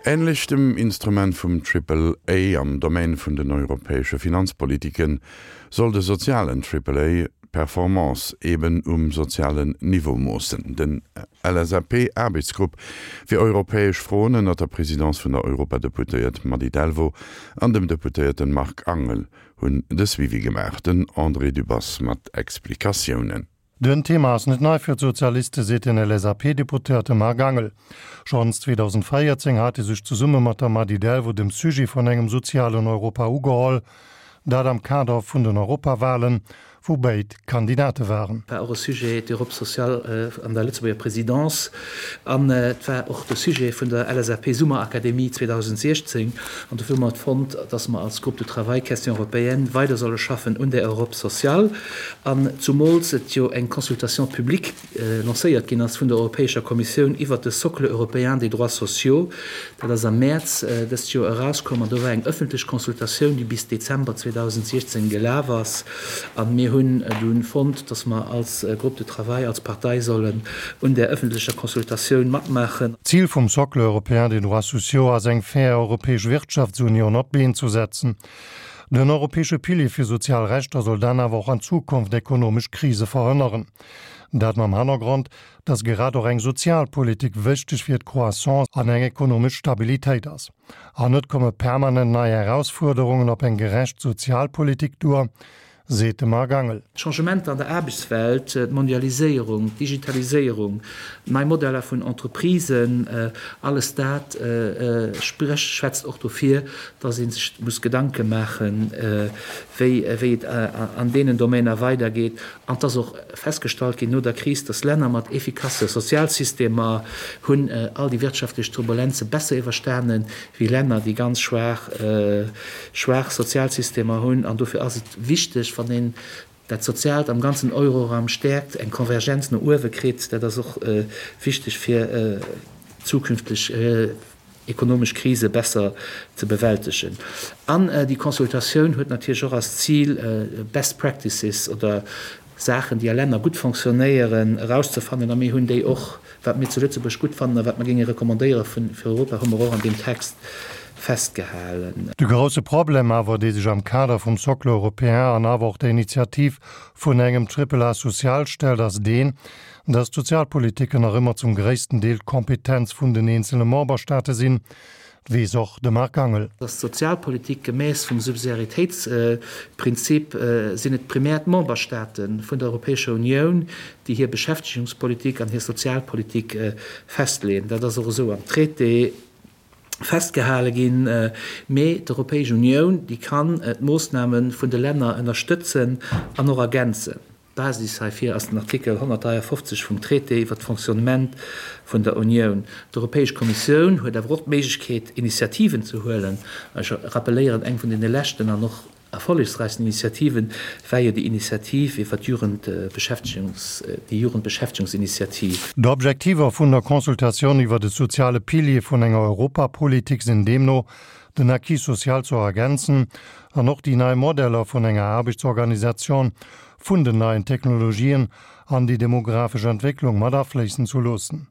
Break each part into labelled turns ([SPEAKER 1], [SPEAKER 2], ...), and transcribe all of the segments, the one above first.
[SPEAKER 1] Änlech dem Instrument vum Triple A am Domaine vun den europäesche Finanzpolitiken, soll de sozialen Triple A d'Performance eben um sozialen Niveau moossen. Den LSAP-Aarbechtsgrupp fir europäesch Froen ënnert der Presidence vun der Europadeputéiert Mady Delvaux an dem Deputéierten Marc Angel hunn de Suivi gemaach. Den André Dübbers mat Explikatiounen.
[SPEAKER 2] Den Thema ass net nei fir d'Sozialiste, seet den LSAP-Deputéierte Marc Angel. Schonns 2014 hat e sech zesumme mat der Mady Delvaux dem Sujet vun engem sozialen Europa ugeholl, dat am Kader vun den Europawalen, wou béid Kandidate waren.
[SPEAKER 3] War och e Sujet, d'Europe sociale an der Lëtzebuerger Présidence. An et war och de Sujet vun der LSAP-Summerakademie 2016. An dofir hu mer et fonnt, dass mer als Groupe de travail Questions européennes weider solle schaffen un där Europe sociale. An zumools et jo eng Consultation publique lancéiert ginn ass vun der Europäescher Kommissioun iwwert de Socle européen des droits sociaux. Dat ass am Mäerz dëst Joer erauskomm an do war eng ëffentlech Consultatioun, déi bis Dezember 2016 gelaf ass. A mir hunn dunn fonnt, dass mer als Groupe de travail, als Partei sollen un där ëffentlecher Consultatioun matmaachen.
[SPEAKER 2] D'Zil vum Socle européen des droits sociaux ass eng fair europäesch Wirtschaftsunioun op d'Been zu setzen. Den europäesche Pilier fir sozial Rechter soll dann awer och an Zukunft ekonomesch Krise verhënneren. Dat mam Hannergrond, dass grad och eng Sozialpolitik wichteg fir d'Croissance an eng ekonomesch Stabilitéit ass. An net komme permanent nei Erausfuerderungen op eng gerecht Sozialpolitik duer, seet de Marc Angel.
[SPEAKER 3] D'Changementer an der Aarbechtswelt, d'Mondialiséierung, d'Digitaliséierung, nei Modeller vun Entreprisen, alles dat sprécht, schwätzt och dofir, dass ee sech muss Gedanke maachen, wéi et an deenen Domainer weidergeet. An et ass och festgestallt ginn no der Kris, dass Länner mat efficasse Sozialsystemer hunn all déi wirtschaftlech Turbulenze besser iwwerstanen, wéi Länner, déi ganz schwaach, schwaach Sozialsystemer hunn. An dofir ass et wichteg, wann een dat Soziaalt am ganzen Euroraum stäerkt, eng Konvergenz no uewe kritt. Dat ass och wichteg fir zukünfteg ekonomesch Krise besser ze bewältegen. An déi Consultatioun huet natierlech och als Zil, Best Practices oder Saachen, déi a Länner gutt fonctionnéieren, erauszefannen. A mir hunn déi och, wat mir zu Lëtzebuerg gutt fannen a wat mer géinge recommandéiere fir Europa, hu mer och an deem Text festgehalen.
[SPEAKER 2] De grousse Problem awer, dee sech am Kader vum Socle européen an awer och der Initiativ vun engem Triple A social stellt, ass deen, dass d'Sozialpolitiken nach ëmmer zum gréissten Deel d'Kompetenz vun den eenzele Memberstaate sinn, weess och de Marc Angel.
[SPEAKER 3] Dass d'Sozialpolitik gemäss vum Subsidiaritéitsprinzip sinn et primär d'Memberstaate vun der Europäescher Unioun, déi hir Beschäftegungspolitik an hir Sozialpolitik festleeën. Dat ass och esou am Traité festgehale ginn. Mee d'Europäesch Unioun, déi kann d'Moossname vun de Länner ënnerstëtzen an och ergänzen. D'Basis heifir ass den Artikel 153 vum Traité iwwer d'Fonctionnement vun der Unioun. D'Europäesch Kommissioun huet awer och d'Méiglechkeet, Initiativen ze huelen. Ech rappeléieren, eng vun deene leschten an och erfollegsräichsten Initiativen war jo déi Initiativ iwwer d'Jugendbeschäftegungs, déi Jugendbeschäftegungsinitiativ.
[SPEAKER 2] D'Objektiver vun der Consultatioun iwwer de soziale Pilier vun enger Europapolitik sinn deemno, den Acquis social ze ergänzen an och déi nei Modeller vun enger Aarbechtsorganisation vun den neien Technologien an déi demografesch Entwécklung mat afléissen zu loossen.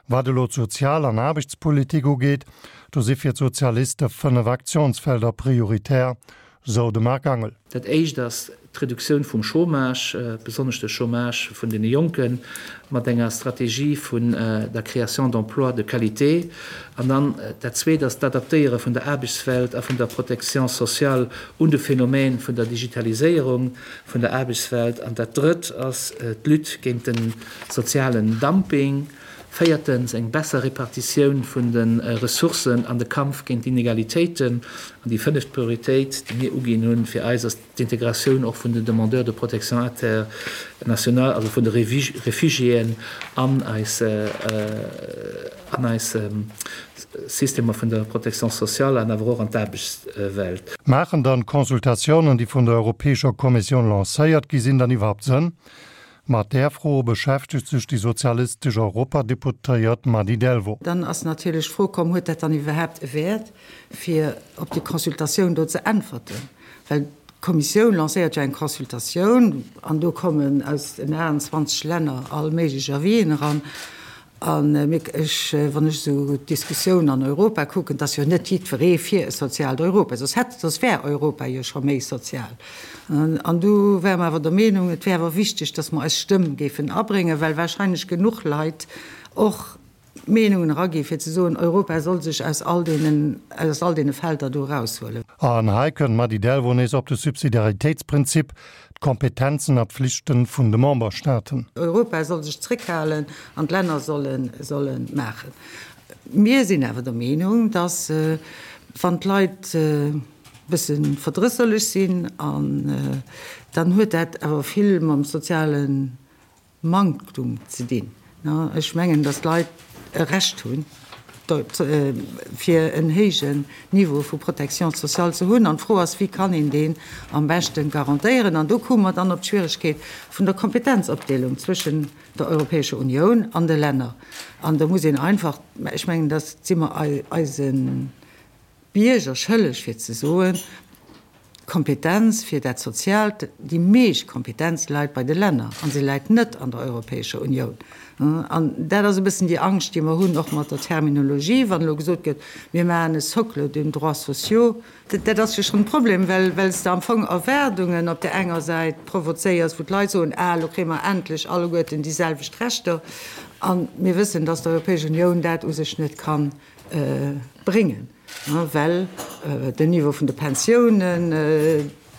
[SPEAKER 2] Wat elo d'Sozial an Aarbechtspolitik ugeet, do si fir d'Sozialiste 5 Aktionsfelder prioritär, sou de Marc Angel.
[SPEAKER 3] Dat éischt ass d'Reduktioun vum Chômage, besonnesch de Chômage vun deene Jonken, mat enger Strategie vun der Création d'emplois de qualité. An dann dat Zweet ass d'Adaptéiere vun der Aarbechtswelt a vun der Protection sociale un de Phänomen vun der Digitaliséierung vun der Aarbechtswelt. An dat Drëtt ass d'Lutte géint de sozialen Dumping. Véiertens, eng besser Repartitioun vun de Ressourcen an de Kampf géint d'Inegalitéiten. An déi fënneft Prioritéit, déi mir uginn hunn, fir eis ass d'Integratioun och vun den Demandeurs de protection internationale, also vun de Réfugiéen an eis, an eis Systemer vun der Protection sociale an awer och an d'Aarbechtswelt.
[SPEAKER 2] Maachen dann d'Consultatiounen, déi vun der Europäescher Kommissioun lancéiert gi sinn, dann iwwerhaupt Sënn? Mat där Fro beschäftegt sech déi sozialistesch Europadeputéiert Mady Delvaux.
[SPEAKER 4] Dann ass natierlech d'Fro komm, Huet dat dann iwwerhaapt e Wäert, fir op déi Consultatioun do ze äntwerten? Well d'Kommissioun lancéiert jo eng Consultatioun an do kommen aus den 28 Länner all méiglech Avisen eran. An mir, ech, wann ech esou d'Diskussioun an Europa kucken, et ass jo net jiddweree fir e soziaalt Europa, soss hätt, soss wär Europa jo scho méi sozial. An du ware mer awer der Meenung, et wär awer wichteg, datt mer eis Stëmm géifen abréngen, well wahrscheinlech genuch Leit och Meenungen eragi fir ze soen, Europa soll sech aus all deenen, aus all deene Felder do eraushuelen.
[SPEAKER 2] An hei kënnt d'Mady Delvaux nees op de Subsidiaritéitsprinzip, d'Kompetenzen a Pflichten vun de Memberstaaten.
[SPEAKER 4] Europa soll sech zréckhalen an d'Länner solle, solle maachen. Mir sinn awer der Meenung, datt wann d'Leit e bësse verdrësserlech sinn, an dann huet dat awer vill mam soziale Manktum ze dinn. Ech mengen, datt d'Leit e Recht hunn, fir en héijen Niveau vu Protection sociale ze hunn. An d'Fro ass, Wéi kann een deen am beschte garantéieren? An do komme mer dann op d'Schwieregkeet vun der Kompetenzopdeelung zwëschen der Europäescher Unioun an de Länner. An do muss een einfach, ech mengen, dat si mer eise Bierger schëlleg fir ze soen, d'Kompetenz fir dat Soziaalt, déi meescht Kompetenz läit bei de Länner a se läit net an der Europäescher Unioun. An dat ass e bëssen déi Angscht, déi mer hunn, och mat der Terminologie, wann elo gesot gëtt, mir maachen e Socle de droits sociaux. Dat ass jo schonn e Problem, well well s de am Fong Erwaardungen op där enger Säit provozéiers, wou d'Leit soen, ah, elo kréie mer endlech alleguerten déi selwecht Rechter. A mir wëssen, dass d'Europäesch Unioun dat u sech net kann bréngen, well den Niveau vun de Pensiounen,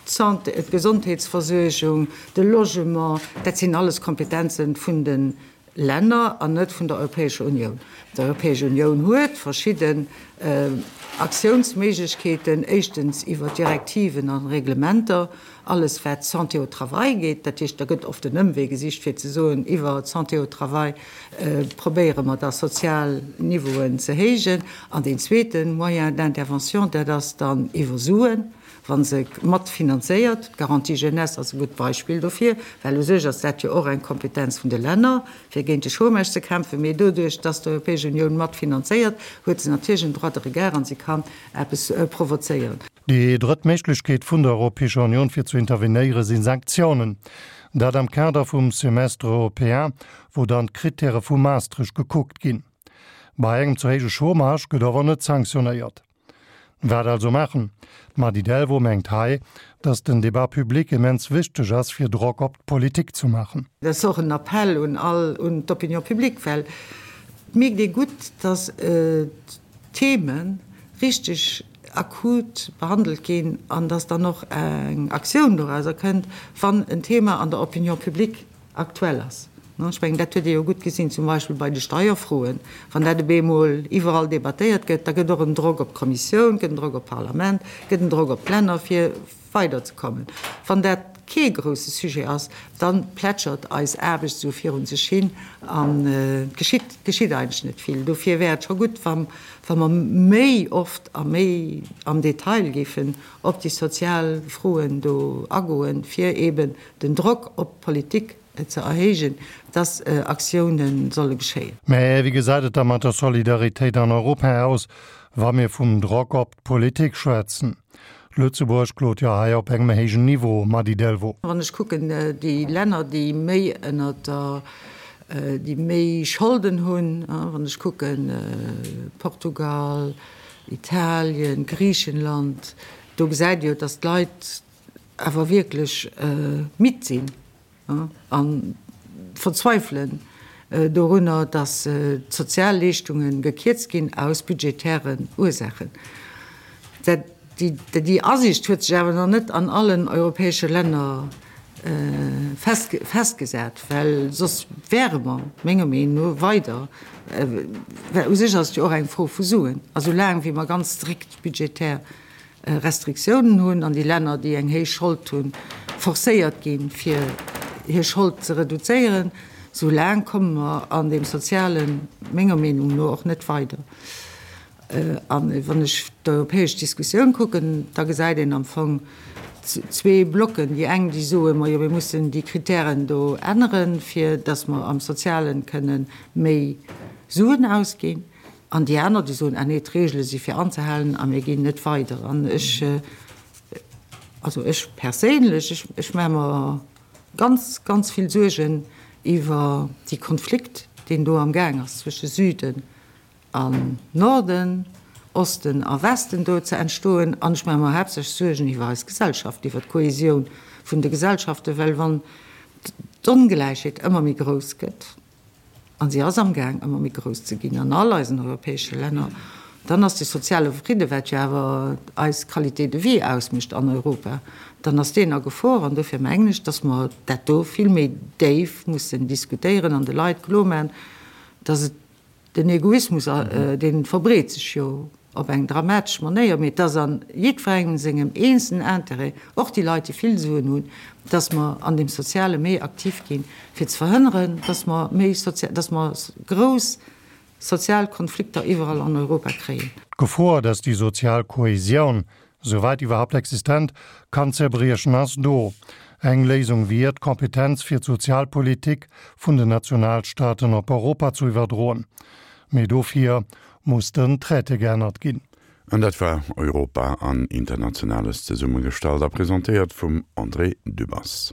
[SPEAKER 4] d'Santé, d'Gesondheetsversuergung, de Logement, dat sinn alles Kompetenzen vun de Länner an net vun der Europäescher Unioun. D'Europäesch Unioun huet verschidden Aktiounsméiglechkeeten, éischtens iwwer Direktiven a Reglementer, alles wat d'Santé au travail geet, dat heescht, da gëtt oft en Ëmwee gesicht fir ze soen, iwwer d'Santé au travail probéiere mer da sozial Niveauen ze héijen. An deen zweete Moyen d'intervention, dat ass dann iwwer Suen, wa se mat finanzéiert. D'Garantie jeunesse ass e gutt Beispill dofir, well u sech ass dat jo och eng Kompetenz vun de Länner, fir géint de Chômage ze kämpfen. Mee doduerch, dass d'Europäesch Unioun mat finanzéiert, huet se natierlech en Droit de regard an se kann eppes provozéieren.
[SPEAKER 2] Déi drëtt Méiglechkeet vun der Europäescher Union fir zu intervenéiere si Sanktiounen. Dat am Kader vum Semestre européen, wou dann d'Krittäre vu Maastricht gekuckt ginn. Bei engem ze héije Chômage gëtt awer net sanktionéiert. Wat also maachen? D'Mady Delvaux mengt hei, datt den Débat public immens wichteg ass fir Drock op d'Politik zu maachen.
[SPEAKER 4] Dat ass och en Appell un all, un d'Opinion publique, well et mierkt ee gutt, datt d'Theme richteg akut behandelt ginn an dass dann och eng Aktioun dorauser kënnt, wann en Thema an der Opinion publique aktuell ass. Ech mengen, dat huet ee jo gutt gesinn, zum Beispill bei de Steierfroen. Wann dat op eemol iwwerall debattéiert gëtt, da gëtt och en Drock op d'Kommissioun, gëtt en Drock op d'Parlament, gëtt en Drock op d'Länner, fir weiderzekommen. Wann dat kee grousse Sujet ass, da plätschert eis Aarbecht esou virun sech hin an et geschitt, geschitt eigentlech net vill. Dofir wär et scho gutt, wa wa mer méi oft a méi am Detail géifen op déi sozial Froen do agoen, fir eeben den Drock op d'Politik ze erhéijen, dass Aktiounen solle geschéien.
[SPEAKER 2] Mä wéi gesäit et da mat der Solidaritéit an Europa aus, wa mir vum Drock op d'Politik schwätzen? Lëtzebuerg klot jo hei op engem héijen Niveau, Mady Delvaux.
[SPEAKER 4] Wann ech kucken, déi Länner, déi méi ënner der, déi méi Scholden hunn, wann ech kucken, Portugal, Italien, Griichenland, do gesäit ee jo, datt d'Leit awer wierklech midd sinn. A verzweifelen dorunner, datt d'Sozialleeschtunge gekierzt ginn aus budgetären Ursaachen. Déi Asiicht huet sech awer nach net an allen europäesche Länner festgesat, well soss wäre mer, menger Meenung no, weider, well u sech ass et jo och eng Fro vu Suen, a soulaang wéi mer ganz strikt budgetär Restriktiounen hunn an déi Länner, déi eng héich Schold hunn, forcéiert ginn, fir hir Schold ze reduzéieren, sou laang komme mer an deem Sozialen, menger Meenung no, och net weider. A wann ech d'europäesch Diskussioun kucken, da gesäit een am Fong zwee Blocken, déi eng, déi soen, majo, mir mussen déi Kritären do änneren, fir datt mer am Sozialen kënne méi Suen ausginn. An déi aner, déi soen, ah nee, d'Regele si fir anzehalen a mir ginn net weider. An ech, also ech perséinlech, ech, ech maache mer ganz, ganz vill Suergen iwwer déi Konflikt. deen do am Gaang ass zwësche Süden an Norden, Osten a Westen do ze entstoen. An ech maache mer haaptsächlech Suergen iwwer eis Gesellschaft, iwwer d'Kohesioun vun de Gesellschaften, well wann d'Ongläichheet ëmmer méi grouss gëtt, a si ass amgaang ëmmer méi grouss ze ginn an all eisen europäesche Länner, dann ass de soziale Fridde, wat jo awer eis Qualité de vie ausmécht an Europa, dann ass deen a Gefor. An dofir mengen ech, dass mer dat do vill méi déif mussen diskutéieren an de Leit kloermaachen, dass et Den Egoismus, dee verbreet sech jo op eng dramatesch Manéier, mee et ass a jiddwerengem sengem eenzelen Intérêt, och déi Leit, déi vill Suen hunn, dass mer an deem Soziale méi aktiv ginn, fir ze verhënneren, dass mer méi sozial, dass mer grouss sozial Konflikter iwwerall an Europa kréien.
[SPEAKER 2] D'Gefor, dass déi sozial Kohesioun souwäit iwwerhaupt existent, kann zerbriechen, ass do. Eng Léisung wier, d'Kompetenz fir d'Sozialpolitik vun den Nationalstaaten op Europa zu iwwerdroen. Mee dofir muss den Traité geännert ginn.
[SPEAKER 1] An dat war Europa an Internationales, zesummegestallt a presentéiert vum André Dübbers.